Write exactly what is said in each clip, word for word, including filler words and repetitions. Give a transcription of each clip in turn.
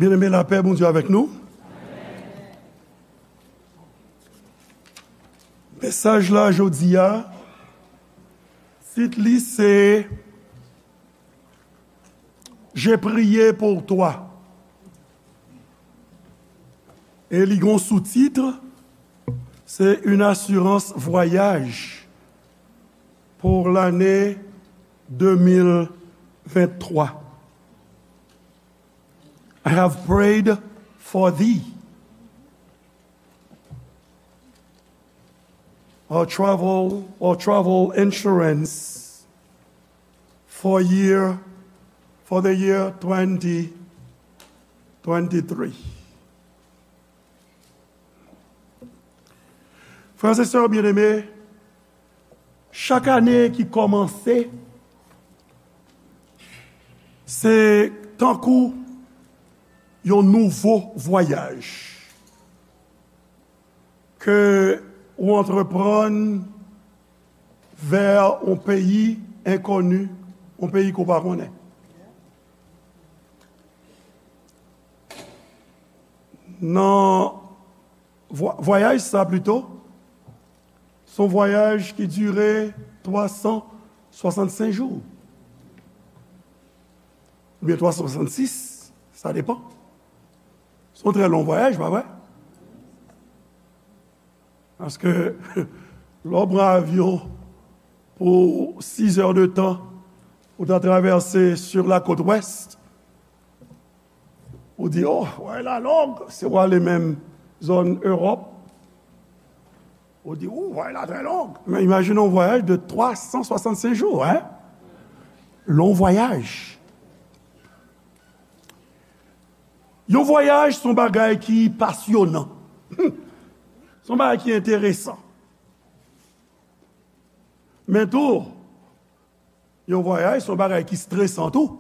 Byeneme, lapè Bondye avèk nou. Mesaj la jodi a, tit li se J'ai prié pour toi. E li gen yon sou-tit, se une assurance voyage pour l'année deux mille vingt-trois. I have prayed for thee. Or travel, or travel insurance for year, for the year twenty twenty-three. Frè e sè byeneme, chak ane ki kòmanse, se tankou yon nouvo vwayaj ke ou antreprann vè yon peyi enkoni, yon peyi ke w pa konnen. Nan vwa-, vwayaj sa pito, se yon vwayaj ki dire twa san swasannsenk jou. Oubyen twa san swasannsis, sa depann. Se yon trè long vwayaj, pa vre? Paske, lè w pran avyon pou sizè de tan, ou ta travèse sur la côte ouest, ou di, "Oh, vwayaj la long," si w ale menm zòn Ewòp, ou di, "Oh, vwayaj la trè long." Men imajine yon vwayaj de twa san swasannsenk jou, hein? Long vwayaj. Yon vwayaj se yon bagay ki pasyonan. Se yon bagay ki enteresan. Men tou, yon vwayaj se yon bagay ki stresan tou.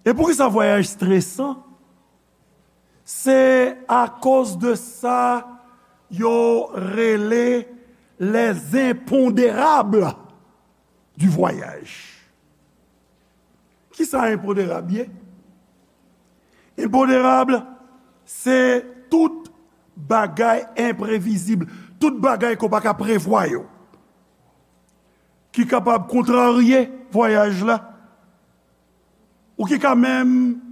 E poukisa vwayaj stresan? Se akoz de sa yo rele les impondérables du voyage. Kisa enponderab ye? Enponderab, se tout bagay enprevizib, tout bagay ke w pa ka prevwa yo, ki kapab kontrarye vwayaj la, ou ki ka menm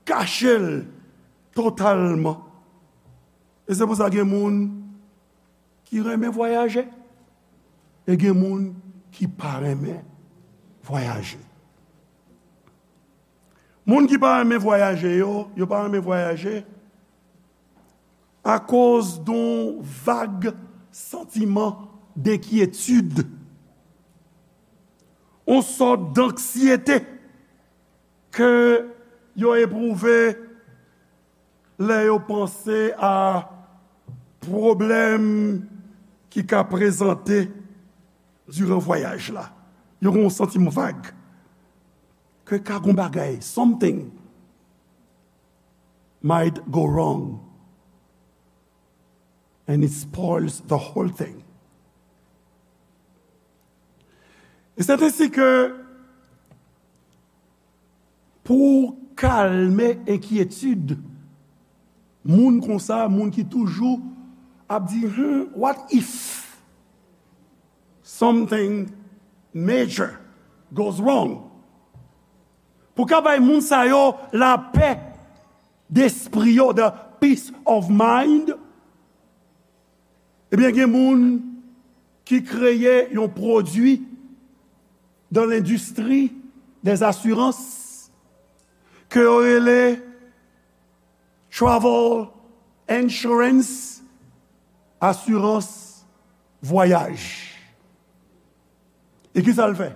kache l totalman. E se pou sa gen moun ki renmen vwayaje, e gen moun ki pa renmen vwayaje. Moun ki pa renmen vwayaje yo, yo pa renmen vwayaje akoz de yon vag santiman denkyetid, yon sòt danksyete ke yo epwouve lè yo panse a pwoblèm ki ka prezante diran vwayaj la. Yo gen yon santiman vag ke ka gen yon bagay, something might go wrong and it spoils the whole thing. E se ensi ke pou kalme enkyetid moun konsa, moun ki toujou ap di, "Hmm, what if something major goes wrong?" Pou ka bay moun sa yo lapè despri yo, the peace of mind, ebyen, gen moun ki kreye yon pwodui dans l'industrie des assurances ke yo rele travel insurance, asirans vwayaj. E kisa l fè?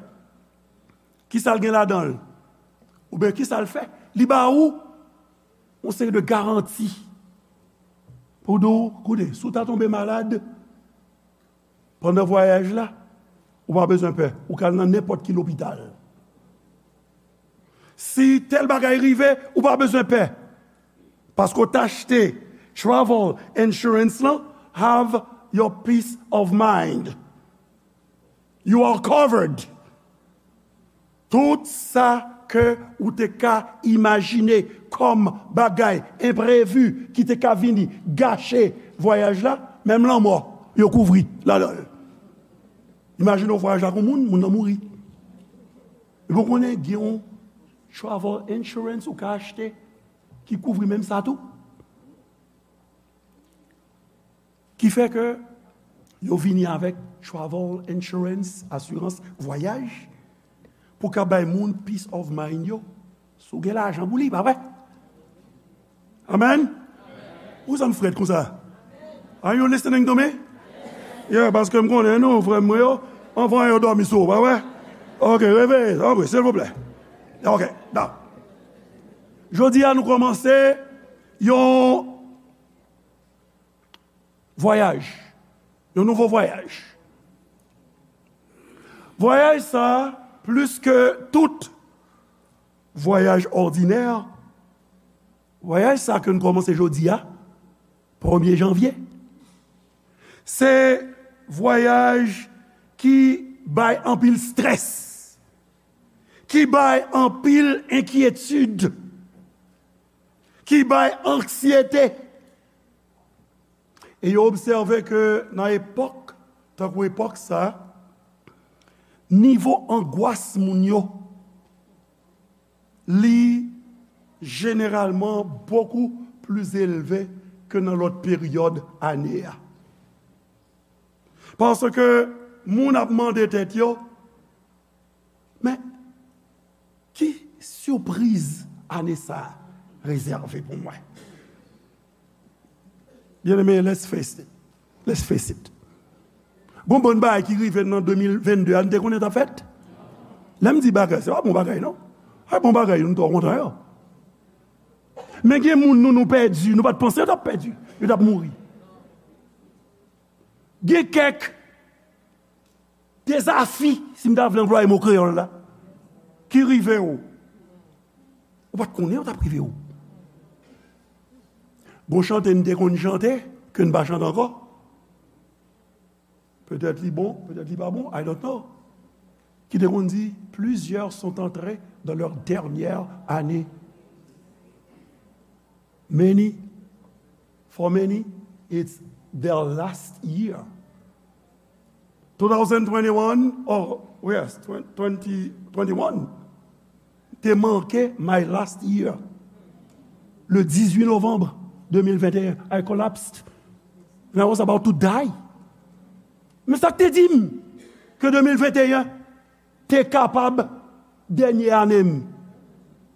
Kisa l gen ladan l? Oubyen kisa l fè? Li ba ou yon seri de garanti pou di w, koute, si w ta tonbe malad pandan vwayaj la, ou pa bezwen pè. Ou ka al nan nenpòt ki lopital. Si tèl bagay rive, ou pa bezwen pè. Paske w t achte travel insurance lan, have your peace of mind. You are covered. Tout sa ke ou te ka imajine kòm bagay enprevi ki te ka vini gache vwayaj la, menm lanmò, yo kouvri ladan l. Imajine w vwayaj ak yon moun, moun nan mouri. Epi w konnen gen yon travel insurance ou ka achte ki kouvri menm sa tou. Ki fè ke yo vini avèk travel insurance, asirans vwayaj, pou ka bay moun peace of mind yo. Si w gen lajan pou li, pa vre? Amen? Ou sa m frèt konsa? Are you listening to me? Yeah, paske m konnen nou, frè m yo, anvan yo dòmi sou ou, pa vre? Ok, reveye, tanpri, silvouplè. Ok, da. Jodi a, nou kòmanse yon vwayaj, yon nouvo vwayaj. Vwayaj sa, plis ke tout vwayaj òdinè, vwayaj sa ke n kòmanse jodi a, premye janvye, se vwayaj ki bay anpil strès, ki bay anpil enkyetid, ki bay anksyete. E yo obsève ke nan epòk, tankou epòk sa, nivo angwas moun yo, li jeneralman bokou pli elve ke nan lòt peryòd ane a. Paske moun ap mande tèt yo, men, ki sipriz ane sa a rezève pou mwen? Byeneme, let's face it. Let's face it. Gon bann bagay ki rive nan de mil vennde a, n te konnen t ap fèt? Lè m di bagay, se pa bon bagay, non. Se pa bon bagay, nou twò kontan yo. Men gen moun nou, nou pèdi, nou pa t panse yo t ap pèdi, yo t ap mouri. Gen kèk dezafi, si m ta vle anplwaye mo kreyòl la, ki rive w. Ou pa t konnen yo t ap rive w. Gon chante n te konn chante, ke n pa chante ankò. Petèt li bon, petèt li pa bon, I don't know. Ki te konn di, plusieurs sont entrés dans leur dernière année. Many, for many, it's their last year. Two thousand twenty-one, oh, yes, twenty twenty-one, te manke my last year. Le dix-huit novembre deux mille vingt et un, I collapsed. And I was about to die. Men sa k te di m ke de mil venteyen te kapab dènye ane m.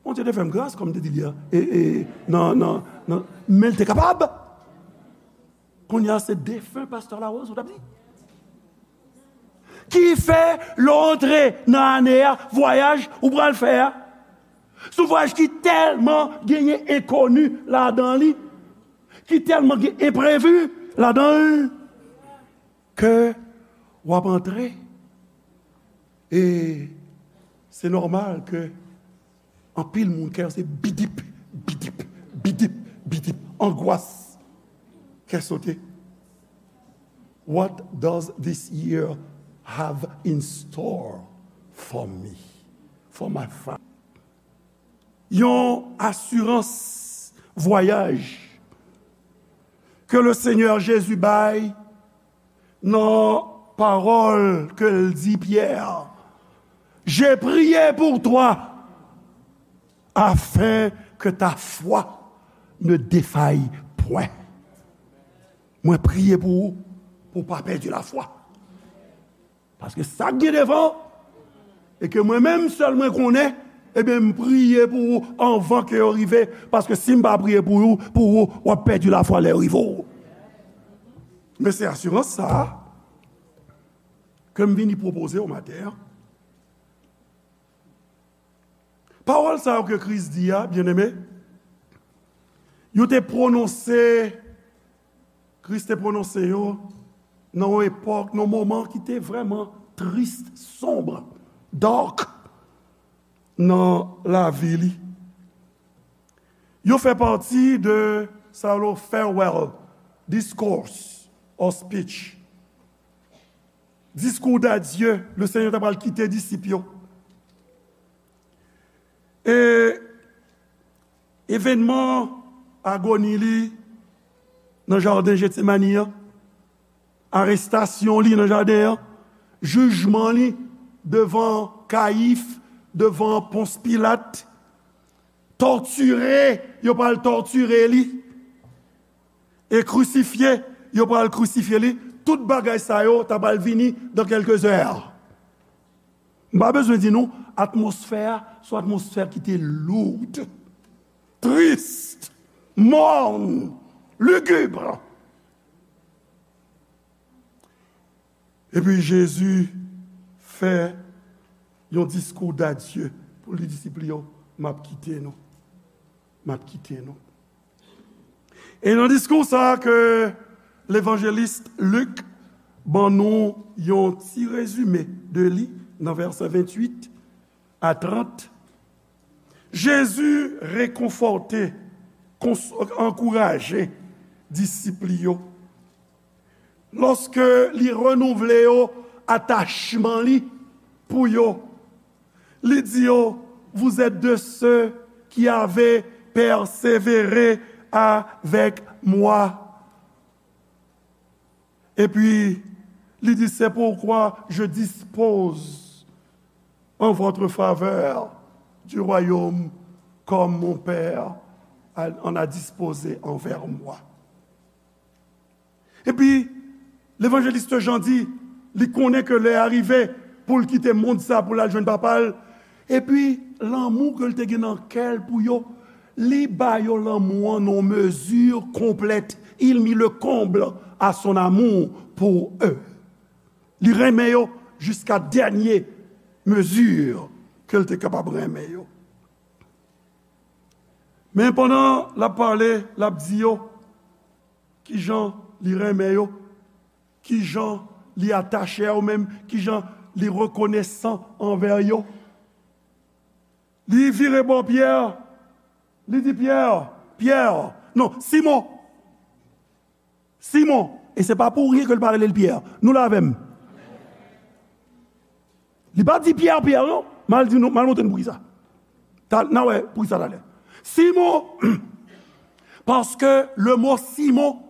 Bondye te fè m gras, kòm m te di li a, e, e, nan, nan, nan, men l te kapab. Kounye a, se defen pastè Larose, ou t ap di? Ki fè, lè w antre nan ane a, vwayaj ou pral fè a, se yon vwayaj ki tèlman genyen enkoni ladan li, ki tèlman gen enprevi ladan l, ke w ap antre. E se nòmal ke anpil moun kè yo se bidip, bidip, bidip, bidip, angwas, kè sote. What does this year have in store for me, for my family? Yon asirans vwayaj ke le Senyè Jezi bay nan pawòl ke l di Pyè, J'ai prié pour toi, afin que ta foi ne défaille point. Mwen priye pou ou, pou w pa pèdi lafwa. Paske sa k gen devan, e ke mwen menm sèl mwen konnen, ebyen, m priye pou ou anvan ke yo rive, paske si m pa priye pou ou, pou ou, w ap pèdi lafwa lè yo rive w. Men se asirans sa a ke m vini pwopoze w maten an. Pawòl sa yo ke Kris di a, byeneme, yo te pwononse, Kris te pwononse yo nan yon epòk, nan yon moman ki te vrèman tris, sonb, dark nan lavi li. Yo fè pati de sa yo rele farewell discourse or speech. Diskou dadye, le Senyè ta pral kite disip yo. E evènman agoni li nan jaden Jetsemani an, arestasyon li nan jaden an, jijman li devan Kayif, devan Pons Pilat, tòtire, yo pral tòtire li, e krisifye, yo pral krisifye li. Tout bagay sa yo ta pral vini dans quelques heures. M pa bezwen di nou, atmosfè a, se yon atmosfè ki te lourd, trist, mòn, ligib. Epi Jezi fè yon diskou dadye pou li disip li yo, m ap kite nou. M ap kite nou. E nan diskou sa a ke levanjelis Lik ban nou yon ti rezime de li nan vèsè venntuit a trant, Jezi rekonfòte, kons-, ankouraje disip li yo. Lòske li renouvle yo atachman li pou yo, li di yo, vous êtes de ceux qui avez persévéré avec moi. Epi, li di, c'est pourquoi je dispose en votre faveur du royaume comme mon Père en a disposé envers moi. Epi, levanjelis Jan di, li konnen ke lè a rive pou l kite mond sa, pou l al jwenn Papa l. Epi, lanmou ke l te gen nan kè l pou yo, li ba yo lanmou an nan yon mezi konplèt. Il mit le comble à son amour pour eux. Li renmen yo jiska dènye mezi ke l te kapab renmen yo. Men pandan l ap pale, l ap di yo kijan li renmen yo, kijan li atache a yo menm, kijan li rekonesan anvè yo. Li vire bò Pyè, li di, Pyè, Pyè, non, Simon, Simon, e se pa pou ryen ke l pa rele l Pyè. Nou la avè m? Li pa di Pyè, Pyè, non. M al di nou, m al montre nou poukisa. Ta-, n a wè poukisa talè. Simon, paske le mot Simon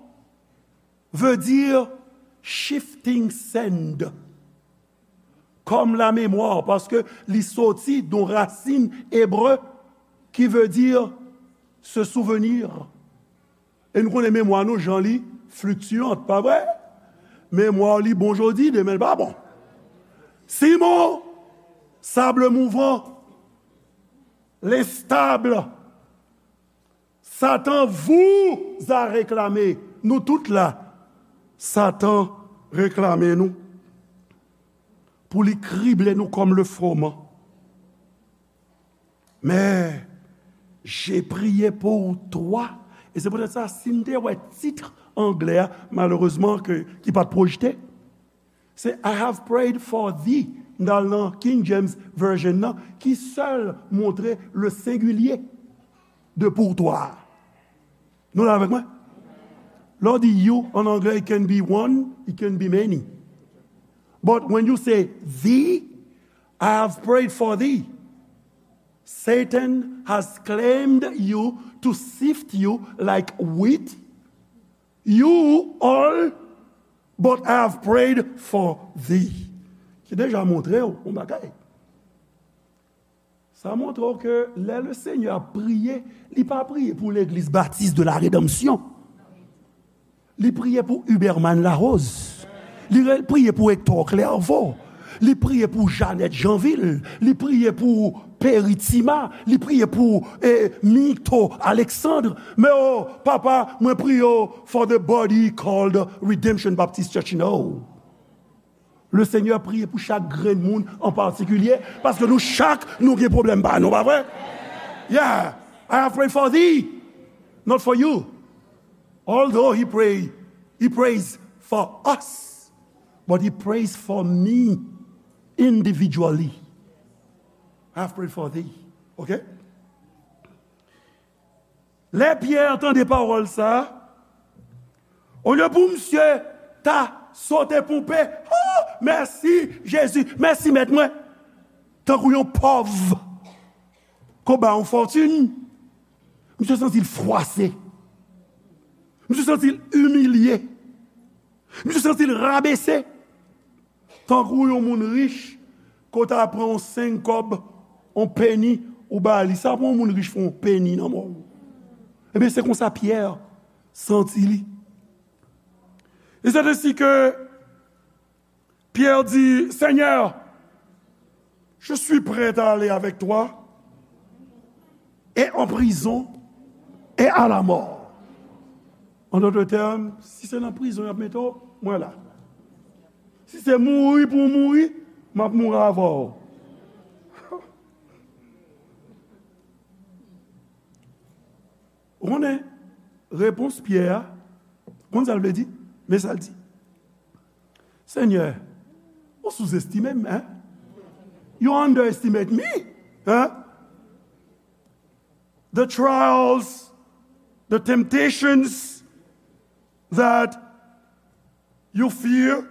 veut dire shifting sand. Comme la mémoire, paske li soti de yon rasin ebre ki vle di se souvenir. E nou konnen memwa nou, jan li fluctuante, pa vre? Memwa li bon jodi, demen l pa bon. Simon, sable mouvant, l'instable, Satan vous a réclamé. Nou tout la, Satan reklame nou pou li krible nou kòm le froman. Mais j'ai prié pour toi. E se poutèt sa, si n te wè tit anglè a, malerezman, ke, ki pa t pwojte, se I have prayed for thee. M t al nan King James Version nan, ki sèl montre le singulier de pour toi. Nou la avèk mwen? Lè w di you an anglè, it can be one, it can be many. But when you say thee, I have prayed for thee. Satan has claimed you to sift you like wheat. You all, but I have prayed for thee. Ki deja montre w yon bagay. Sa montre w ke lè le Senyè ap priye, li pa priye pou Legliz Batis de la Redanmsyon. Li priye pou Huberman Larose. Li re-, priye pou Hector Clairvaux. Li priye pou Jeannette Jeanville. Li priye pou Perry Tima. Li priye pou, eh, Mito Alexandre. Men o, papa, mwen priye w for the body called Redemption Baptist Church. No. Le Senyè priye pou chak grenn moun an patikilye, paske nou chak, nou gen pwoblèm pa nou, pa vre? Yeah, I have prayed for thee, not for you. Although he pray, he prays for us, but he prays for me individually. I have prayed for thee. Ok? Lè Pyè tande pawòl sa a, olye pou misye ta sote ponpe, "Oh, mèsi, Jezi, mèsi, Mèt mwen," tankou yon pòv. ke w ba yon fòtin, misye santi l fwase. Misye santi l imilye. Misye santi l rabese. Tankou yon moun rich, ke w ta pran yon senk kòb, yon peni, ou ba li. Sa pou yon moun rich fè yon peni nan men w. Ebyen, se konsa Pyè santi li. Et c'est ainsi que Pierre dit, Seigneur, je suis prêt à aller avec toi et en prison et à la mort. En d'autres termes, si se nan prizon y ap mete w, mwen la. Si se mouri pou w mouri, m ap mouri avè w. Ou konnen, repons Pyè a, ou konn sa l vle di? Men sa l di. Senyè, ou souzestime m, hein? You underestimate me, hein? The trials, the temptations that you fear,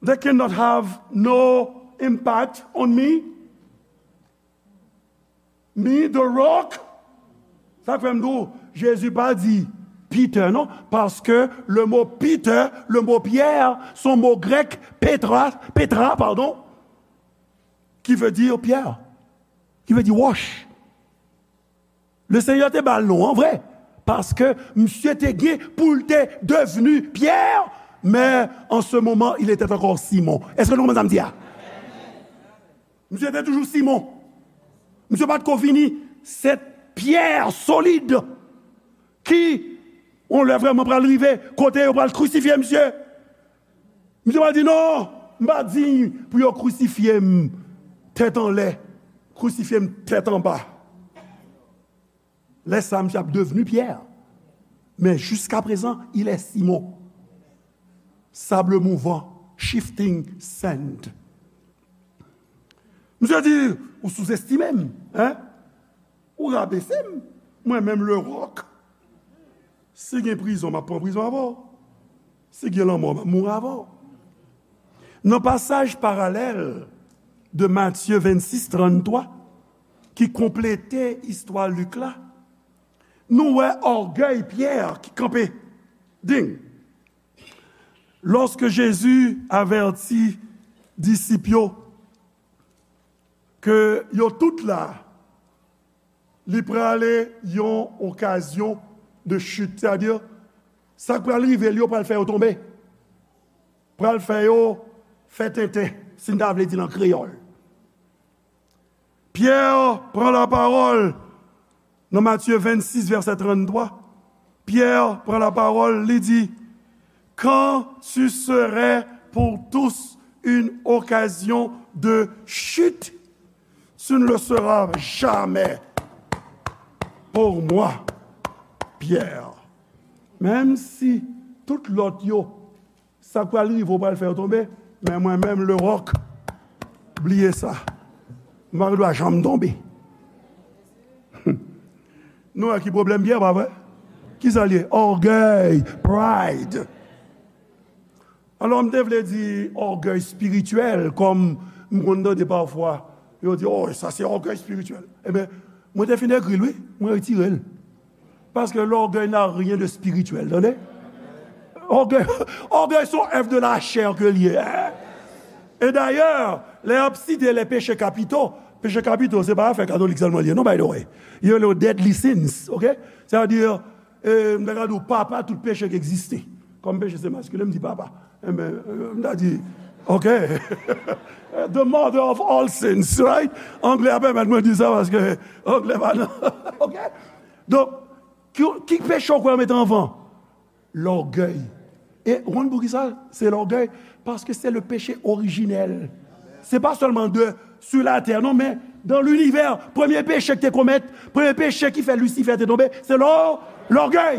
they cannot have no impact on me. Me, the rock. Sa k fè m di w, Jezi pa di Peter, non, paske le mo Peter, le mo Pierre, se yon mo grèk, petra, petra, pardon, qui veut dire pierre, qui veut dire roche. Le Senyè te ba l non an vre, paske misye te gen pou l te devni Pyè, men an se moman, il était encore Simon. Èske nou konprann sa m di a? Misye te toujou Simon. Misye pa t ko vini se pyè solid ki, yon lè vrèman pral rive, kote yo pral krisifye misye. Misye pral di, non, m pa diy pou yo krisifye m tèt anlè, krisifye m tèt anba. Lè sa, misye ap devni Pyè. Men jiskaprezan, il est Simon. Sable mouvant, shifting sand. Misye di, ou souzestime m, hein? Ou rabese m, mwen menm le rock. Si gen prizon, m ap pran prizon avè w. Si gen lanmò, m ap mouri avè w. Nan pasaj paralèl de Matye vennsis tranntwa, ki konplete istwa Lik la, nou wè ògèy Pyè ki kanpe. Ding! Lorsque Jésus avertit disip yo ke yo tout la, li prale yon okazyon de chute, sètadi, sa k pral rive l yo pral fè yo tonbe, pral fè yo fè tenten, si n ta vle di l an kreyòl. Pyè pran lapawòl nan Matye vennsis, vèsè tranntwa. Pyè pran lapawòl, li di, quand tu serais pour tous une occasion de chute, tu ne le seras jamais pour moi, Pierre. Menm si tout lòt yo, sa k pral rive w pral fè yo tonbe, men mwen menm, le rock, bliye sa. M pa gen dwa janm tonbe. Nou wè ki pwoblèm Pyè, pa vre? Ki sa l ye? Ògèy, pride. Alò, m te vle di ògèy espirityèl, kòm m konn tande pafwa, yo di, oh, sa se ògèy espirityèl. Ebyen, mwen te fin ekri l, wi, mwen retire l. Parce que l'orgueil n'a rien de spirituel, tande? Ògèy, ògèy se yon èv de la chè ke l ye, hein? E dayè, lè y ap site les péchés capitaux, peche kapito, se pa afè katolik sèlman l ye, non, by the way. Yo rele yo deadly sins, ok? Sètadi, e, m ta ka di w papa tout peche ki egziste. Kòm peche se maskilen, m di papa. Enben, e, m ta di, ok. The mother of all sins, right? Anglè a pèmèt mwen di sa paske anglè pa nan, ok? Donk, ki, ki peche w kwè yo mete anvan? Lògèy. E ou konn poukisa se lògèy? Paske se le péché originel. Se pa sèlman de, sur la terre, non, men dans l'univers, premye peche ki te komèt, premye peche ki fè Lisifè te tonbe, se lò, lògèy.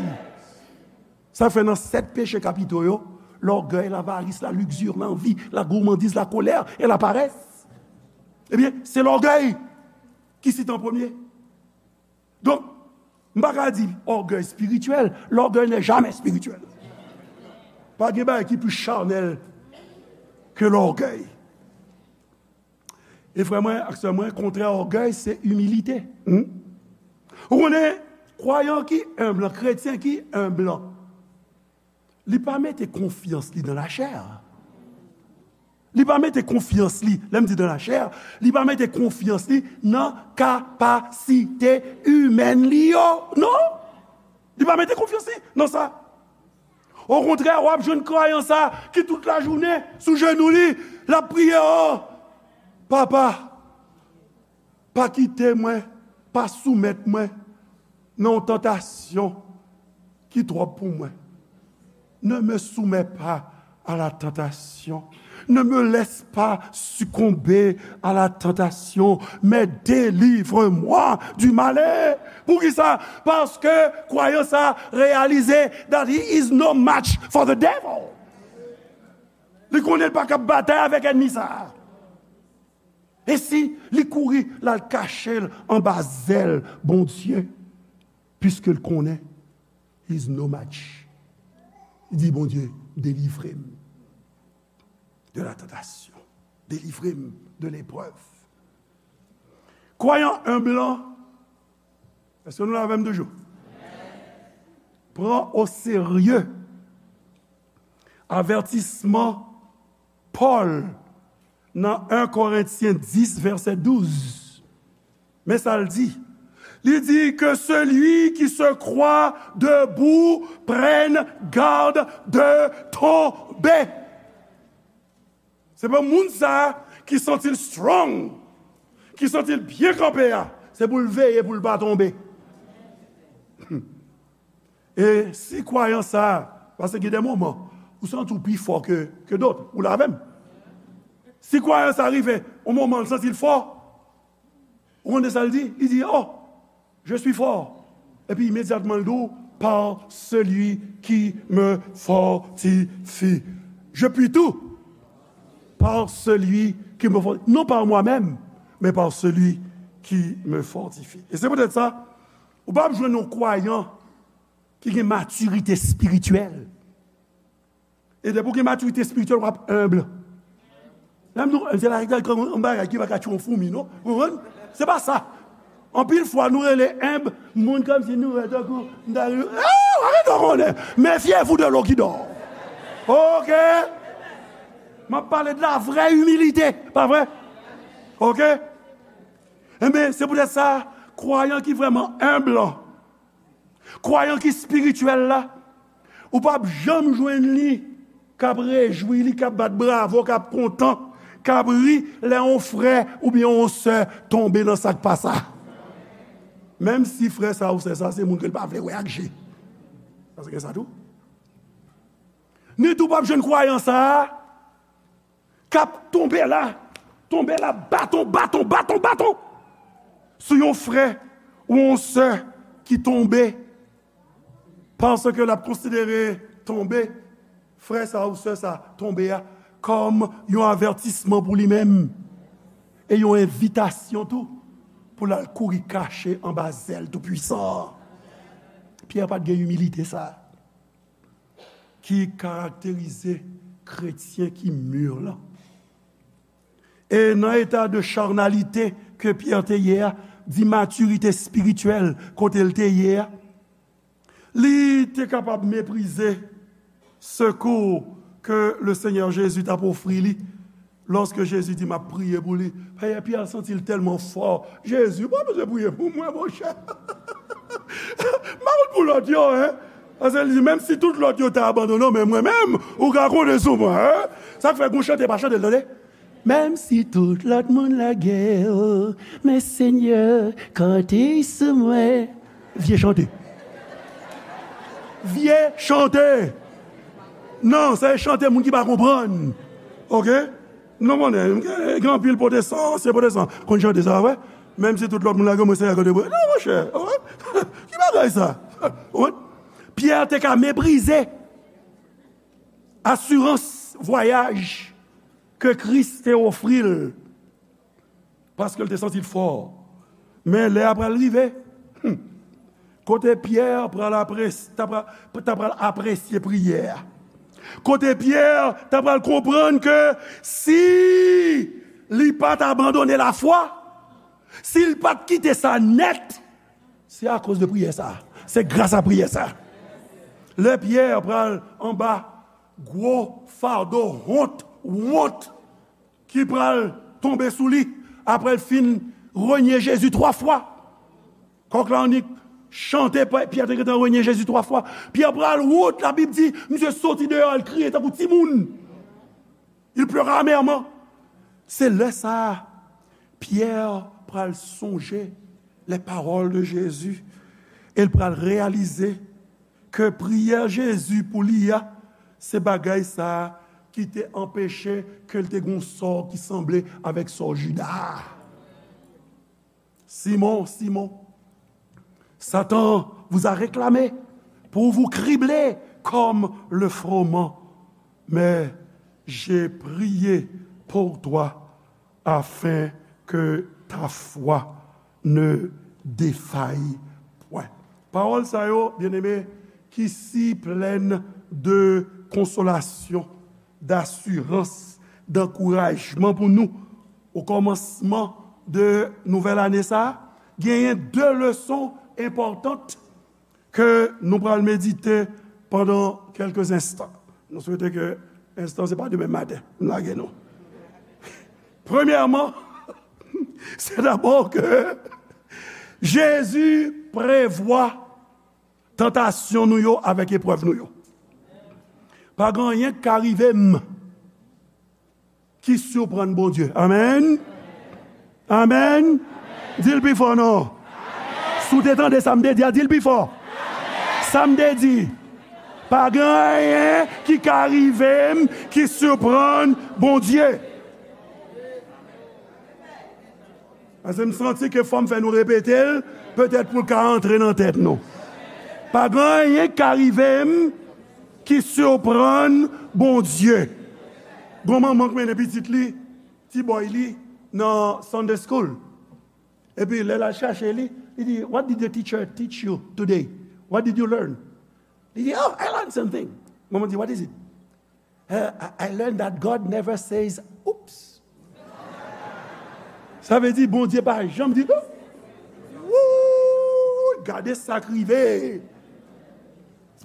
Sa fè nan sèt peche kapito yo, lògèy, lavaris, lalikzi, lanvi, lagourmandiz, lakolè e laparès. Ebyen, se lògèy ki site an premye. Donk, m pa ka di ògèy espirityèl, l'orgueil n'est jamais spirituel. Pa gen bagay ki pli chanèl ke lògèy. E frè mwen ak sè mwen, kontrè ògèy, se imilite. Hmm? Ou konnen, kwayan ki enb lan, kretyen ki enb lan, li pa mete konfyans li nan lachè. Li pa mete konfyans li, lè m di nan lachè, li pa mete konfyans li nan kapasite imèn li yo. Non! Li pa mete konfyans li nan sa. Okontrè, w ap jwenn kwayan sa ki tout lajounen sou jenou li, l ap priye, o, Papa, pa kite mwen, pa soumèt mwen nan yon tantasyon ki twòp pou mwen. Ne me soumets pas à la tentation. Ne me laisse pas succomber à la tentation, mais délivre-moi du malin. Poukisa? Paske kwayan sa reyalize that he is no match for the devil. Li konnen l pa kab batay avèk ènmi sa a. E si li kouri, l al kache l anba zèl Bondye, piske l konnen he's no match. Li di, Bondye, delivre m de la tantasyon. Delivre m de leprèv. Kwayan enb lan, èske nou la avè m toujou? Pran o serye avètisman Pòl nan en Korentyen dis, vèsè douz. Men sa l di. Li di, que celui qui se croit debout prenne garde de tomber. Se pou moun sa a ki santi l strong, ki santi l byen kanpe a, se pou l veye pou l pa tonbe. E si kwayan sa a, paske gen de moman, ou santi w pi fò ke, ke dòt, ou la avè m. Si kwayan sa a rive, yon moman, l santi l fò, ou konnen sa l di? Li di, oh, je suis fort. Epi imedyatman, l di w, par celui qui me fortifie. Je puis tout par celui qui me fortifie. Non par moi-même, mais par celui qui me fortifie. E se poutèt sa, ou p ap jwenn yon kwayan ki gen matirite espirityèl. E depi w gen matirite espirityèl, w ap enb. Lè m di w enb, se la, yon bagay ki pa ka tchwe yon foumi, non? Ou konprann? Se pa sa. Anpil fwa, nou rele enb moun kòmsi nou wè tankou, m ta rele, ah, arete w konnen. Méfiez-vous de l'eau qui dort. Oke? M ap pale de la vrè imilite, pa vre? Oke? Enben, se poutèt sa, kwayan ki vrèman enb lan, kwayan ki espirityèl la, ou p ap janm jwenn li k ap rejwi li, k ap bat bravo, k ap kontan, k ap ri lè yon frè oubyen yon sè tonbe nan sa k pa sa. Menm si frè sa ou sè sa se moun ke l pa vle wè ak je. Paske gen sa tou. Ni tou p ap jwenn kwayan sa a k ap tonbe la, tonbe la, baton, baton, baton, baton, sou yon frè ou yon sè ki tonbe, paske l ap konsidere tonbe, frè sa ou sè sa tonbe a, kòm yon avètisman pou li menm, e yon envitasyon tou, pou l al kouri kache anba zèl Toupwisan an. Pyè pa t gen imilite sa a ki karakterize kretyen ki mi lan. E nan eta de charnalite ke Pyè te ye a, di matirite espirityèl kote l te ye a, li te kapab meprize sekou ke le Senyè Jezi t ap ofri li. Lòske Jezi di, "M ap priye pou li," Pyè, Pyè santi l tèlman fò. "Jezi, ou pa bezwen priye pou mwen, monchè. M pa konn pou lòt yo, en." Paske li di, "Menm si tout lòt yo ta abandone w, men mwen menm, ou ka konte sou mwen, en." Sa k fè gon chante pa chante l, tande. Menm si tout lòt moun lage w, men Senyè, konte sou mwen. Vye chante. Vye chante. Non, se chante moun ki pa konprann. Oke? Nou konnen, gen, gen anpil pwotestan, ansyen pwotestan, konn chante sa, wè. Menm si tout lòt moun lage mwen, Senyè, konte pou mwen. Non, monchè, wè. Ki bagay sa? Wè. Pyè te ka meprize asirans vwayaj ke Kris te ofri l. Paske l te santi l fò. Men lè a pral rive, hmm, kote Pyè pral apres-, ta pral, ta pral apresye priyè a. Kote Pyè ta pral konprann ke si Li pa t abandone lafwa. Si l pa t kite sa nèt, se akoz de priyè sa a. Se gras a priyè sa a. Lè Pyè pral anba gwo fado wont, wont ki pral tonbe sou li apre l fin renye Jezi twa fwa. Kòk la annik chante, Pyè te gentan renye Jezi twa fwa. Pyè pral wont, Labib di, misye soti deyò, l kriye tankou timoun. Il pleura amèrement. Se lè sa a, Pyè pral sonje les paroles de Jésus e l pral reyalize ke priyè Jezi pou li a, se bagay sa a ki te anpeche ke l te gen yon sò ki sanble avèk sò Jida a. Simon, Simon, Satan vous a réclamé pour vous cribler comme le froment. Mais j'ai prié pour toi afin que ta foi ne défaille point. Pawòl sa yo, byeneme, ki si plèn de konsolasyon, dasirans, dankourajman pou nou. O kòmansman de nouvèl ane sa a, genyen de leson enpòtan ke nou pral medite pandan kèlke enstan. Nou swete ke enstan se pa demen maten m lage nou. Premyèman, se dabò ke Jezi prevwa tantasyon nou yo avèk eprèv nou yo. Pa gen anyen k ka rive m ki siprann Bondye. Amèn. Amèn. Di l pi fò non. Si w te tande sa m te di a, di l pi fò. Sa m te di, pa gen anyen ki ka rive m ki siprann Bondye. Paske m santi ke fò m fè nou repete l, petèt pou l ka antre nan tèt nou. Pa gen anyen k ka rive m ki siprann Bondye. Gon manman k mennen pitit li, ti bòy li, nan Sunday school. Epi lè l al chache li, li di, "What did the teacher teach you today? What did you learn?" Li di, "Oh, I learned something." Manman di, "What is it?" "Uh, I, I learned that God never says, 'Oops.'" Sa vle di, Bondye pa janm di, "Oops." Wouy, gade sa k rive.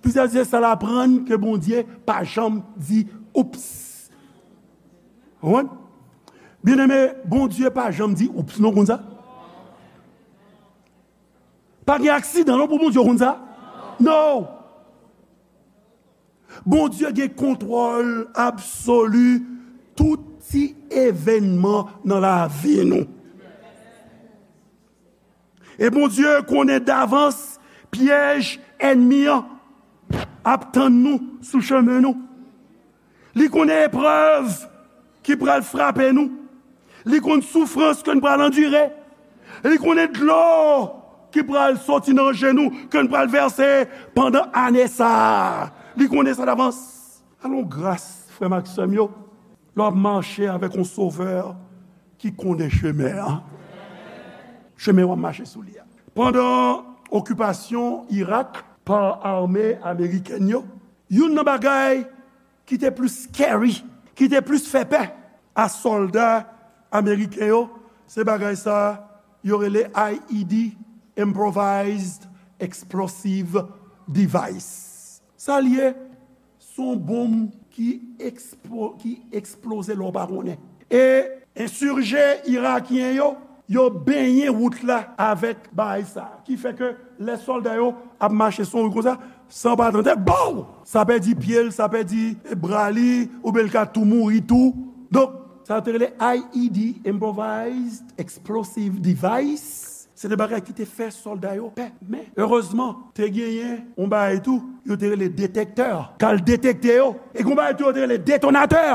Plizyè se sa l aprann ke Bondye pa janm di, "Oops." Ou konprann? Byeneme, Bondye pa janm di, "Oops," non, konn sa? Pa gen aksidan, non, pou Bondye, konn sa? Non. Bondye gen kontwòl absoli tout ti evènman nan lavi nou. E Bondye konnen davans pyèj ènmi an ap tann nou sou chemen nou. Li konnen eprèv ki pral frape nou. Li konn soufrans ke n pral andire. Li konnen dlo ki pral soti nan je nou, ke n pral vèse pandan ane sa a. Li konnen sa davans. Alon gras, frè m ak sè m yo, lè w ap mache avèk yon Sovè ki konnen chemen an. Chemen w ap mache sou li a. Pandan okipasyon Irak pa ame amerikèn yo, youn nan bagay ki te plis scary, ki te plis fè pè a sòlda ameriken yo, se bagay sa yo rele I E D, Improvised Explosive Device. Sa l ye, se yon bonm ki eksplo-, ki eksploze lè w pa konnen. E ensije irakyen yo, yo benyen wout la avèk bagay sa a. Ki fè ke lè sòlda yo ap mache sou yon wout konsa, san pa tande, bow! Sa pèdi pye l, sa pèdi bra li, oubyen l ka tou mouri tou. Donk, sa yo te rele I E D, Improvised Explosive Device. Se te bagay ki te fè sòlda yo pè. Men, erezman, te genyen yon bagay tou, yo te rele detektè. K al detekte yo. E gen yon bagay tou, yo te rele detonatè.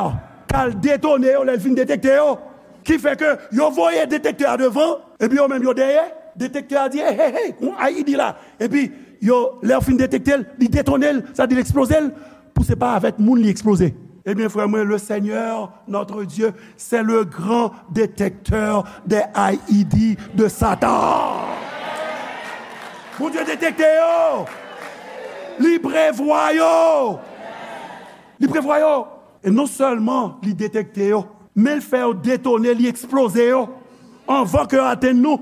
K al detone yo, lè l fin detekte yo. Ki fè ke yo voye detektè a devan, epi yo menm yo dèyè. Detektè a di, "Hey, hey, hey, yon I E D la." Epi, yo, lè yo fin detekte l, li detone l, sa di l eksploze l, pou se pa avèk moun li eksploze. Ebyen, frè mwen, le Seigneur, notre Dieu, c'est le grand détecteur des I E D de Satan. Bondye detekte yo. Li prevwa yo. Li prevwa yo. E non sèlman li detekte yo, Men l fè yo detone, li eksploze yo anvan ke yo atenn nou.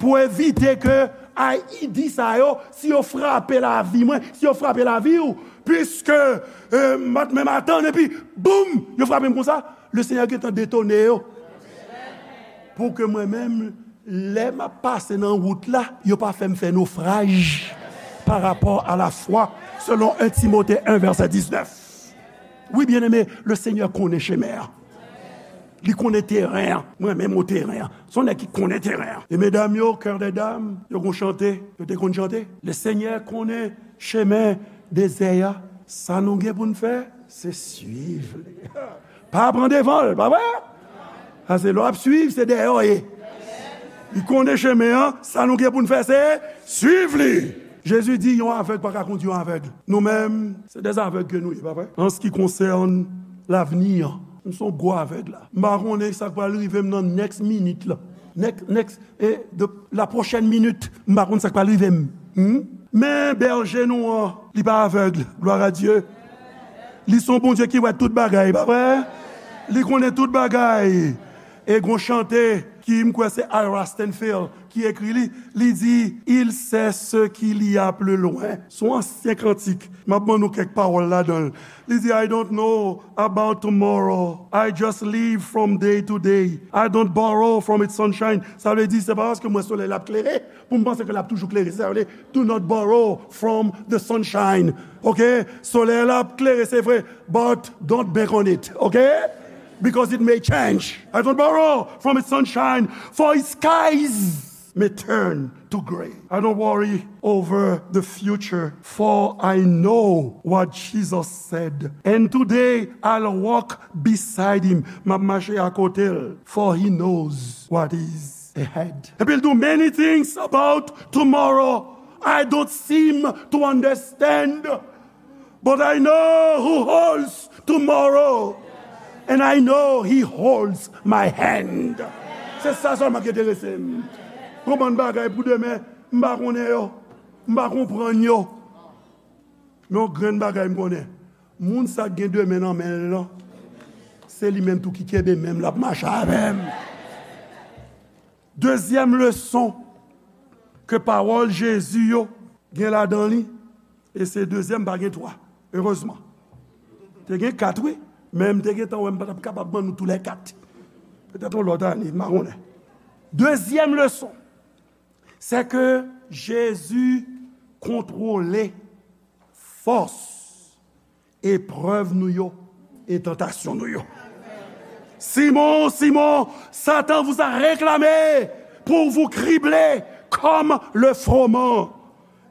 Pou evite ke ay, ide sa yo, si yo frape lavi mwen, si yo frape lavi w, piske, e, m pa t menm atann, epi, boum, yo frape m konsa, Lesenyè gentan detone yo. Pou ke mwen menm, lè m ap pase nan wout la, yo pa fè m fè nofraj pa rapò a lafwa, selon en Timote en vèsè diznèf. Wi, byeneme, Lesenyè konnen chemen an. Li konnen teren an. Mwen menm o teren an. Se yon nèg ki konnen teren an. E medam yo, kè dè dam, yo gon chante, yo te konn chante. Lesenyè konnen chemen dezè a. Sa nou gen pou n fè, se swiv li. Pa pran devan l, pa vre? Paske lè w ap swiv, se dèyè w ye. Li konnen chemen an, sa nou gen pou n fè, se swiv li. Jezi di, yon avèg pa ka kondui yon avèg. Nou menm, se dè avèg ke nou ye, pa vre? An se ki konsène lavni an, m se yon gwo avèg la. M pa konnen sa k pral rive m nan next minute la. Next, next, e, de, la prochaine minute, m pa konn sa k pral rive m. Hmm? Men bèje nou an, li pa avèg, glwa a Dye. Li se yon Bondye ki wè tout bagay, pa vre? Li konnen tout bagay. E gon chante ki, m kwè se Ira Stanfield ki ekri li, li di, Il sait ce qu'il y a plus loin. Se yon ansyen kantik. M ap ban nou kèk pawòl ladan l. Li di, I don't know about tomorrow. I just live from day to day. I don't borrow from its sunshine. Sa vle di, se pa paske m wè solèy la ap klere pou m panse ke l ap toujou klere. Se sa vle, do not borrow from the sunshine. Ok? Solèy la ap klere, se vre. But don't bank on it. Ok? Because it may change. I don't borrow from its sunshine, for its skies may turn to gray. I don't worry over the future, for I know what Jesus said. And today I'll walk beside him. M ap mache akote l, for he knows what is ahead. Epi l di, many things about tomorrow I don't seem to understand. But I know who holds tomorrow, and I know he holds my hand. Se sa sèlman ki enterese m. Gon bann bagay pou demen, m pa konnen yo. M pa konprann yo. Men yon grenn bagay m konnen. Moun sa k gen demen nan men l lan, se li menm tou ki kenbe men m, l ap mache avè m. Dezyèm leson ke pawòl Jezi yo gen ladan li, e se dezyèm, pa gen twa, erezman. Te gen kat, wi, men m te gentan wè m pa t ap kapab ban nou toulèkat. Petèt yon lòt ane, m pa konnen. Dezyèm leson, se ke Jezi kontwole fòs eprèv nou yo e tantasyon nou yo. Simon, Simon, Satan vous a réclamé pour vous cribler comme le froment.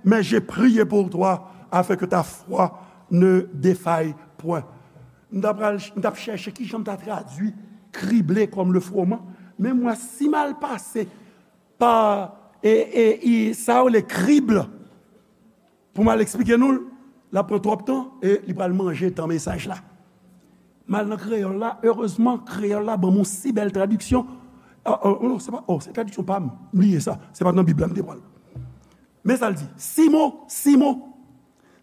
Mais j'ai prié pour toi afin que ta foi ne défaille point. M t ap pral, m t ap chèche kijan m ta tradui krible kòm le froment. Men mwen, si m al pase pa, e, e, e, sa yo le krible, pou m al eksplike nou l, l ap pran twòp tan e li pral manje tan mesaj la. M al nan kreyòl la, erezman, kreyòl la ban m yon si bèl tradiksyon. Ah, oh, non, se pa, oh, se tradiksyon pa m. M bliye sa. Se pa t nan Bib la m te pran l. Men sa l di, Simon, Simon,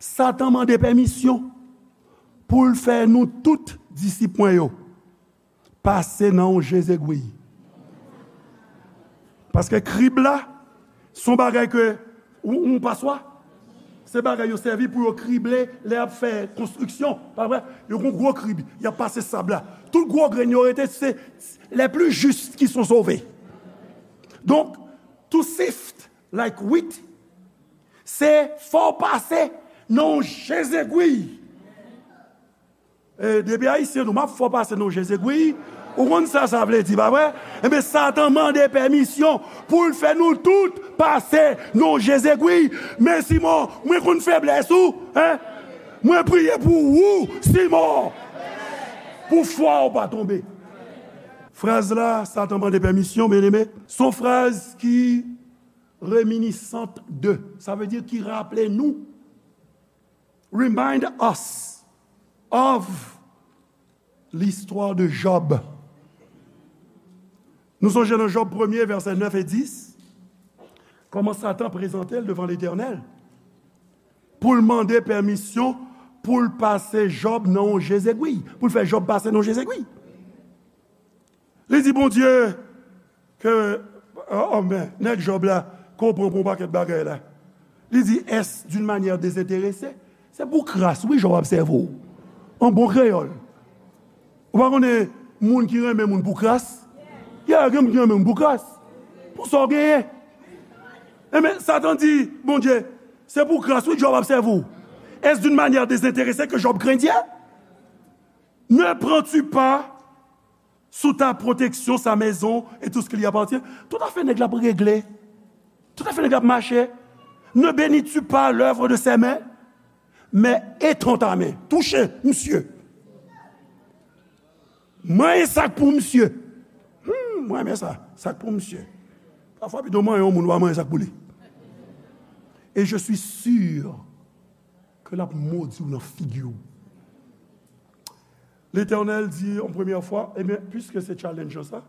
Satan mande pèmisyon pou l fè nou tout disip mwen yo pase nan yon je zegwi. Paske krib la, se yon bagay ke, yon, yon paswa, se bagay yo sèvi pou yo krible lè y ap fè konstriksyon, pa vre? Yo gon gwo krib, y ap pase sab la. Tout gwo grenn yo rete, se les plus justes qui sont sauvés. Donk, to sift like wheat, se fò w pase nan yon je zegwi. E, depi Ayisyen nou, m ap fè w pase nan je zegwi. Ou konn sa sa vle di, pa vre? Enben, Satan mande pèmisyon pou l fè nou tout pase nan je zegwi. Men Simon, mwen konn feblès ou, en? Mwen priye pou ou, Simon, pou fwa w pa tonbe. Fraz la, Satan mande pèmisyon, byeneme, se yon fraz ki reminiscent de, sa vle di ki raple nou, remind us of l'histoire de Job. Nou sonje nan Job premye, vèsè nèf e dis, kòman Satan prezante l devan Letènèl pou l mande pèmisyon pou l pase Job nan yon je zegwi, pou l fè Job pase nan yon je zegwi. Li di, Bondye, ke, oh, oh, men, nèg Jòb la, ke w pran pou yon pakèt bagay la. Li di, est-ce d'une manière désintéressée? Se pou kras, wi, Jòb ap sèvi w. An bon kreyòl. Ou pa konnen moun ki renmen moun pou kras? Ya, gen moun ki renmen moun pou kras. Pou sa w genyen. Enben, Satan di, Bondye, se pou kras, wi, Jòb ap sèvi w. Est-ce d'une manière désintéressée que Job craint Dieu? Ne prends-tu pas sous ta protection sa maison et tout ce qui lui appartient? Tout afè nèg la ap regle. Tout afè nèg la ap mache. Ne bénis-tu pas l'œuvre de ses mains? Mais étends ta main. Touche, misye. Manyen sa k pou misye. Hmm, mwen renmen sa. Sa k pou misye. Pafwa, pito manyen yon moun, w a manyen sa k pou li. Et je suis sûr ke l ap modi w nan figi w. Letènèl di, yon premyè fwa, ebyen, piske se challenge sa,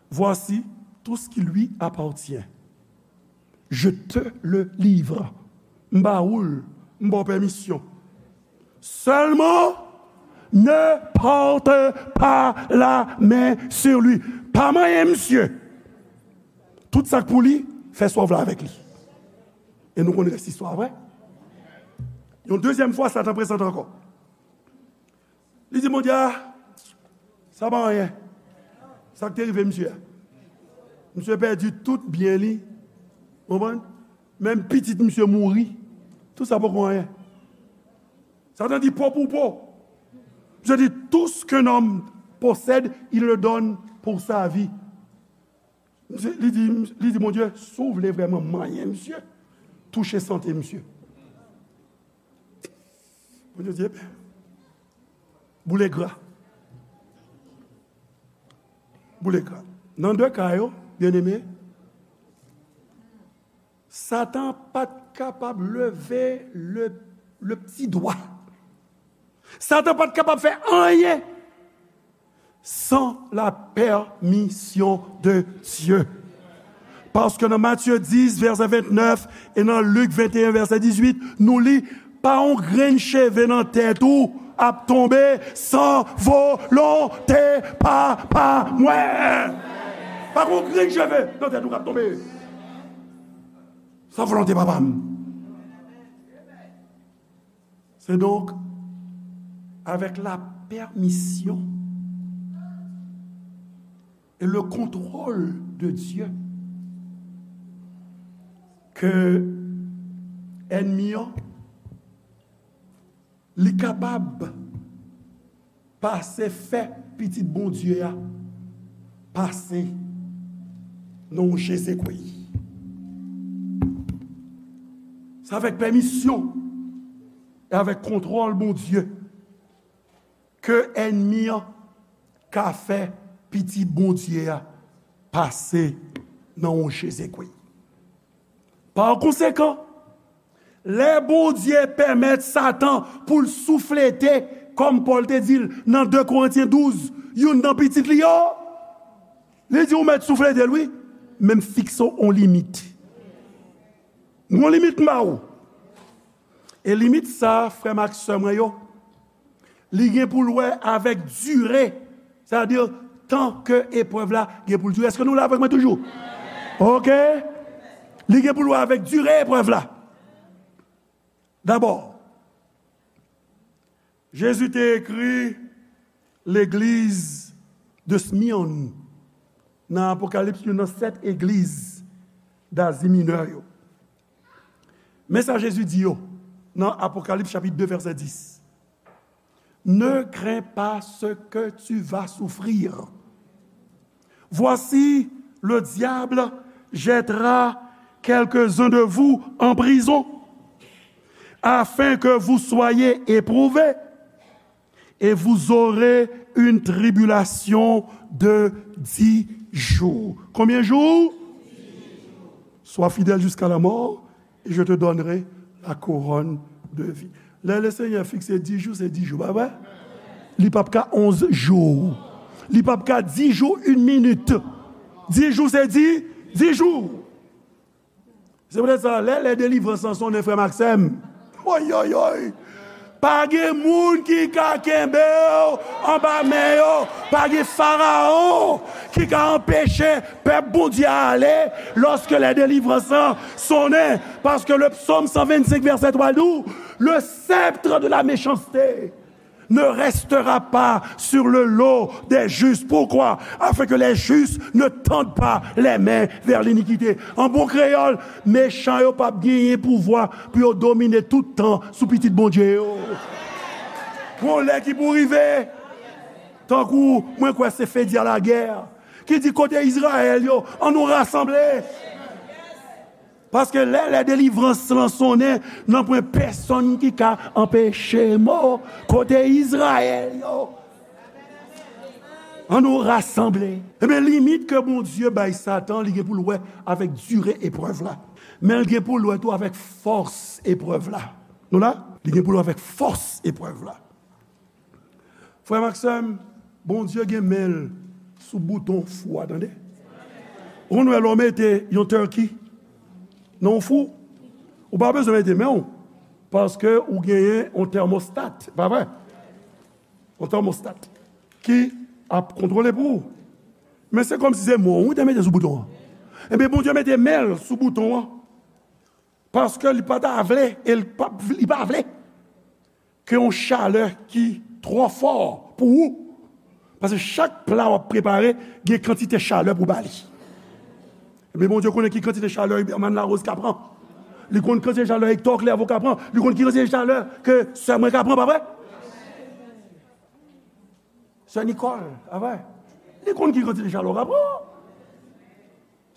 voici tout ce qui lui appartient. Je te le livre. M ba ou l, m ba w pèmisyon. Seulement, ne porte pas la main sur lui. Pa manyen misye. Tout sa k pou li, fè sa w vle avèk li. E nou konn rès istwa a, vre? Yon dezyèm fwa, Satan prezante ankò. Li di, Bondye, a, sa pa anyen. Sa k te rive misye a. Misye pèdi tout byen li. Konprann? Menm pitit misye mouri. Tout sa poko anyen. Satan di, po pou po. Misye di, tout ce qu'un homme possède, il le donne pour sa vie. Misye, li di, li di, Bondye, si w vle vrèman manyen misye, touche sante misye. Bondye di, ebyen, boule gra. Boule gra. Nan de ka yo, byeneme, Satan pa t kapab leve le, le pti dwa. Satan pa t kapab fè anyen san la pèmisyon de Dye. Paske nan Matye dis, vèsè vennèf, e nan Lik venteyen, vèsè dizuit, nou li, pa yon grenn cheve nan tèt ou ap tonbe san volonte Papa mwen. Pa yon grenn cheve nan tèt ou k ap tonbe san volonte Papa m. C'est donc avec la permission et le contrôle de Dieu que ènmi an, li kapab pase fè pitit Bondye a pase nan yon Jezekri. Se avèk pèmisyon e avèk kontwòl Bondye ke ènmi an ka fè pitit Bondye a pase nan yon Jezekri. Pa konsekan, lè Bondye pèmèt Satan pou l souflete, kòm Pòl te di l nan de Korentyen douz, youn nan pitit li yo, li di, ou mèt souflete l, wi, men m fikse w yon limit. Yon limit m ba ou. E limit sa, frè m ak sè mwen yo, li gen pou l wè avèk dire, sètadi tan ke eprèv la gen pou l dire. Èske nou la avèk mwen toujou? Oke. Li gen pou l wè avèk dire eprèv la. Dabò, Jezi te ekri legliz de Smyrne nan Apokalips, youn nan sèt egliz Dazi Minè yo. Men sa Jezi di yo nan Apokalips chapit de, vèsè dis. Ne crains pas ce que tu vas souffrir. Voici, le diable jettera quelques-uns de vous en prison, afin que vous soyez éprouvés, et vous aurez une tribulation de dix jours. Combien de jours? Sois fidèle jusqu'à la mort, et je te donnerai la couronne de vie. Lè Lesenyè fikse dis jou, se dis jou, pa vre? Li p ap ka onz jou. Li p ap ka dis jou, yon minit. Dis jou, se dis, dis jou. Se poutèt sa, lè, lè delivrans lan sonnen, frè m ak sè m, oy, oy, oy, Pa gen moun ki ka kenbe w anba men yo. Pa gen farawon ki ka anpeche pèp Bondye a ale lorsque les délivrances sonnent. Parce que le psaume cent vingt-cinq, verset trois dit, le sceptre de la méchanceté ne restera pas sur le dos des justes. Pourquoi? Afin que les justes ne tendent pas les mains vers l'iniquité. An bon kreyòl, mechan yo p ap genyen pouvwa pou yo domine tout tan sou pitit Bondye yo. Gon lè ki pou rive, tankou mwen kwè se Fedya Lagè ki di, kote Izrayèl yo, ann nou rasanble. Paske lè, lè delivrans lan sonnen, nanpwen pèsonn ki ka anpeche m. Kote Izrayèl yo? Ann nou rasanble. Ebyen, limit ke Bondye bay Satan, li gen pou l wè avèk dire eprèv la. Men l gen pou l wè tou avèk fòs eprèv la. Nou la? Li gen pou l wè avèk fòs eprèv la. Frè m ak sè m, Bondye gen men l sou bouton fou a, tande. Ou konn wè lè w mete yon turkey nan yon fou, ou pa bezwen mete men w, paske ou genyen yon thermostat, pa vre? Yon thermostat ki ap kontwole pou ou. Men se kòmsi se men w te mete sou bouton an. Ebyen, Bondye mete men l sou bouton an. Paske li pa ta vle, e li pa, li pa vle ke yon chalè ki twò fò pou ou. Paske chak pla w ap prepare, gen kantite chalè pou ba li. Men Bondye konnen ki kantite chalè Huberman Larose ka pran. Li konn kantite chalè Hector Clairvaux ka pran. Li konn ki kantite chalè ke sè mwen ka pran, pa vre? Sè Nicole, pa vre? Li konn ki kantite chalè w ka pran.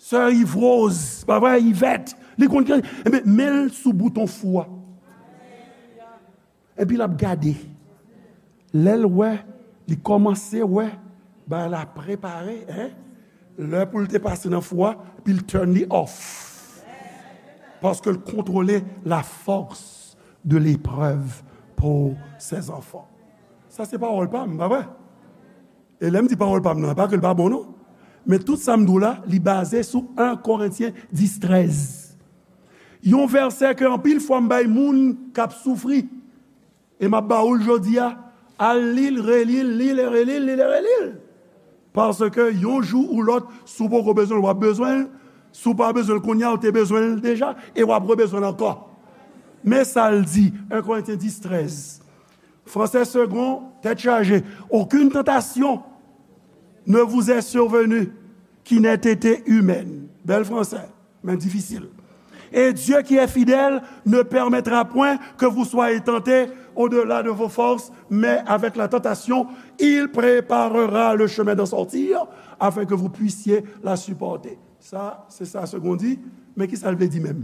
Sè Yves Rose, pa vre, Yvette, li konn ki, ebyen, men l sou bouton fou a. Epi l ap gade. Lè l wè, li kòmanse wè, bagay la prepare, en. Lè pou l te pase nan fou a, epi l turn li off. Paske l kontwole la force de l'épreuve pour ses enfants. Sa se pawòl pa m, pa vre? E lè m di pawòl pa m nan, pa ke l pa bon non. Men tout sa m di w la, li baze sou en Korentyen dis trèz. Yon vèsè ke anpil fwa m bay moun k ap soufri. E m ap ba ou l jodi a, al li l, reli l, li l e reli l, li l e reli l. Paske yon jou ou lòt, si w poko bezwen l, w ap bezwen l. Si w pa bezwen l kounye a, ou te bezwen l deja, e w ap rebezwen l ankò. Men sa l di, en Korentyen dis trèz. Français Segond, tèt chaje. Aucune tentation ne vous est survenue qui n'ait été humaine. Bèl fransè, men difisil. Et Dieu qui est fidèle ne permettra point que vous soyez tentés au-delà de vos forces, mais avec la tentation, il préparera le chemin d'en sortir, afin que vous puissiez la supporter. Sa, se sa Segond di, men ki sa l vle di menm?